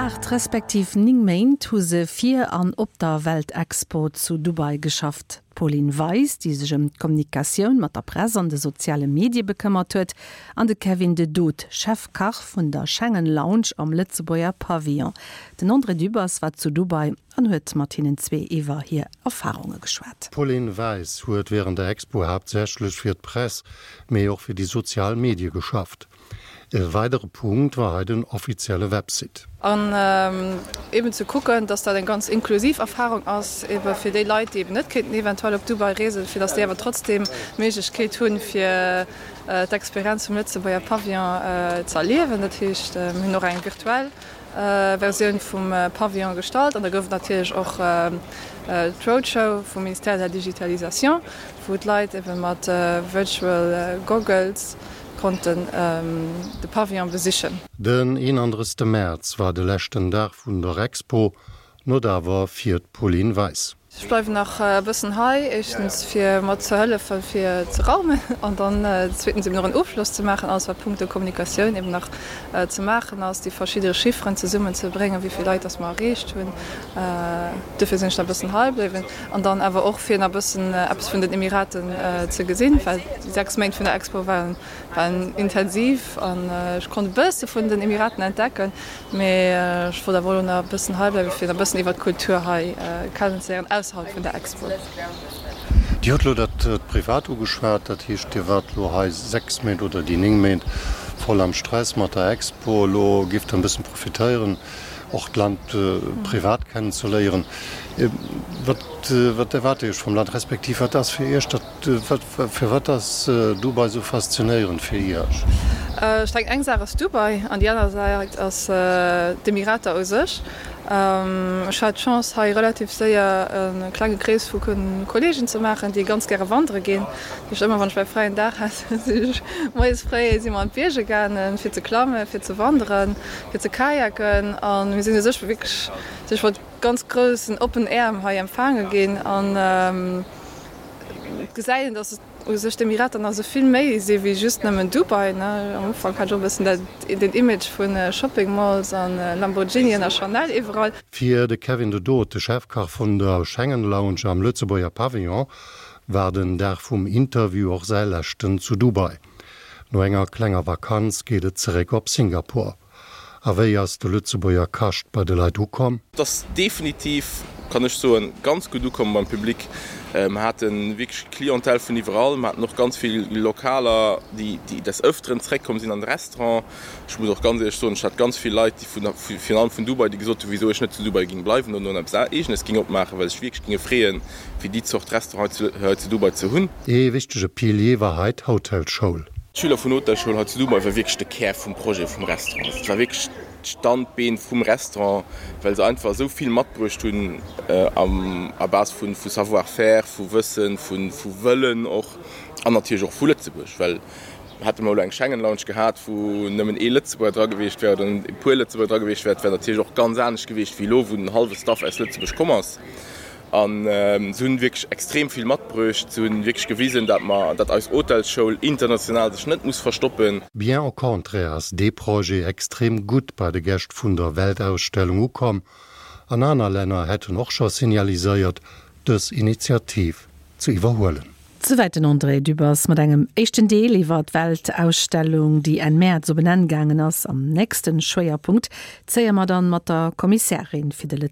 8 respektiv 9 Méint hu se fir an op der Weltexpo zu Dubai geschafft. D'Pauline Weis, déi sech ëm d'Kommunikatioun mat der Press an de soziale Medie bekëmmert huet, an de Kevin de Dood, Chefkach vun der Schengen Lounge am Lëtzebuerger Pavillon. Den André Dübbers war zu Dubai an huet mat hinnen zwee iwwer hir Erfarunge geschwat. D'Pauline Weis huet wärend der Expo haaptsächlech fir d'Press, mee och fir déi sozial Medie geschafft. E weidere Punkt war hei den offizielle Website. An eben ze kucken, dass dat eng ganz inklusiv Erfahrung ass, ebe fir déi Leit, déi eben net kéinten eventuell op Dubai reesen, fir dass déi awer trotzdeem d'Méiglechkeet hunn, fir d'Experienz vum Lëtzebuerger Pavillon ze erliewen. Dat heescht, mir hunn och eng virtuell Versioun vum Pavillon gestallt an da gouf et natierlech och d'Roadshow vum Ministère de la Digitalisation, wou d'Leit ebe mat Virtual Goggles konnten de Pavillon besichen. Den 31 Mäerz war de leschten Dag vun der Expo, not awer fir d'Pauline Weis. Ech bleiwen nach e bëssen hei, éischtens fir mat ze hëllefen fir ze raumen an dann zweetens eben och en Ofschloss ze maachen, alles wat punkto Kommunikatioun eben nach ze maachen ass, déi verschidde Chifferen zesummen ze bréngen, wéi vill Leit dass mer erreecht hunn. Duerfir sinn ech nach e bëssen hei bliwwen an dann awer och fir nach e bëssen eppes vun den Emiraten ze gesinn, well déi 6 Méint vun der Expo waren waren intensiv an ech konnt e bësse vun den Emiraten entdecken, mee ech wollt awer elo nach e bëssen hei bleiwen, fir nach e bëssen iwwer d'Kultur hei kennenzeléieren ausserhalb vun der Expo. Dir hutt elo dat Privat ugeschwat, dat heescht Dir waart elo hei 6 Méint oder déi 9 Méint voll am Stress mat der Expo. Elo giff Der e bëssen profitéieren och d'Land privat kennenzeléieren. Wat wat erwaart Dir Iech vum Land, respektiv wat ass fir Iech dat, wat firwat ass Dubai esou faszinéierend fir Iech? Ech denken eng Saach ass Dubai an déi aner Säit ass d'Emirater u sech. Ech hat d'Chance hei relativ séier e klenge Krees vu Kolleegen ze maachen, déi ganz gäre wandere ginn. Dat heescht ëmmer wann ech mäi fräien Dag hat, sinn ech moies fréi si mer an d'Bierger gaangen fir ze klammen, fir ze wanderen. fir ze kajaken an mir sinn u sech wierklech sech mat ganz groussen oppen Äerm hei empfaange ginn an et gesäit een, dass u sech d'Emirater nach esou vill méi si wéi just nëmmen Dubai. Am Ufank hat ech och e bëssen dat den Image vu Shopping Malls a Lamborghinien a Chanel iwwerall. Fir de Kevin de Dood, de Chefkach vun der Schengen Lounge am Lëtzebuerger Pavillon, war den Dag vum Interview och säi leschten zu Dubai. No enger klenger Vakanz geet et zeréck op Singapur. A wéi ass de Lëtzebuerger Kascht bei de Leit ukomm? Et ass definitiv, kann ech soen, ganz gutt ukomm beim Public. Mer hate wierklech Clientèle vun iwwerall. Mer haten och ganz vill Lokaler, déi des Ëfteren zeréckkomm sinn an de Restaurant. Ech muss och ganz éierlech soen, ech hat ganz vill Leit, déi vun, virun allem vun Dubai, déi gesot hunn, wisou ech net zu Dubai géing bleiwen oder eppes Eegenes géing opmaachen, well se sech wierklech géinge freeën, fir déi Zort Restaurant hei zu Dubai ze hunn. Ee wichtege Pilier war hei d'Hotelschoul. D'Schüler vun Hotelschoul hei zu Dubai war wierklech de Kär vum Projet vum Restaurant. Et war wierklech d'Standbeen vum Restaurant, well se einfach esou vill matbruecht hunn à base vu Savoir-faire, vu Wëssen, vu Wëllen och an natierlech och vu Lëtzebuerg. Well hätte mer elo eng Schengen Lounge gehat, wou nëmmen ee Lëtzebuerger dra gewiescht wär oder e puer Lëtzebuerger dra gewiescht wär, et wär natierlech och ganz anescht gewiescht wéi elo, wou den hallwe Staff aus Lëtzebuerg komm ass. An se hunn wierklech extrem vill matbruecht. Se hunn wierklech gewisen, dat mer, dat eis Hotelsschoul international sech net muss verstoppen. Bien au contraire ass dee Projet extrem gutt bei de Gäscht vun der Weltausstellung ukomm an aner Länner hätten och scho signaliséiert, dës Initiativ ze iwwerhuelen. Souwäit den André Dübbers mat engem éischten Deel iwwer d'Weltausstellung, déi Enn Mäerz op en Enn gaangen ass. Am nächste Schwéierpunkt zéie mer dann mat der Kommissärin fir de.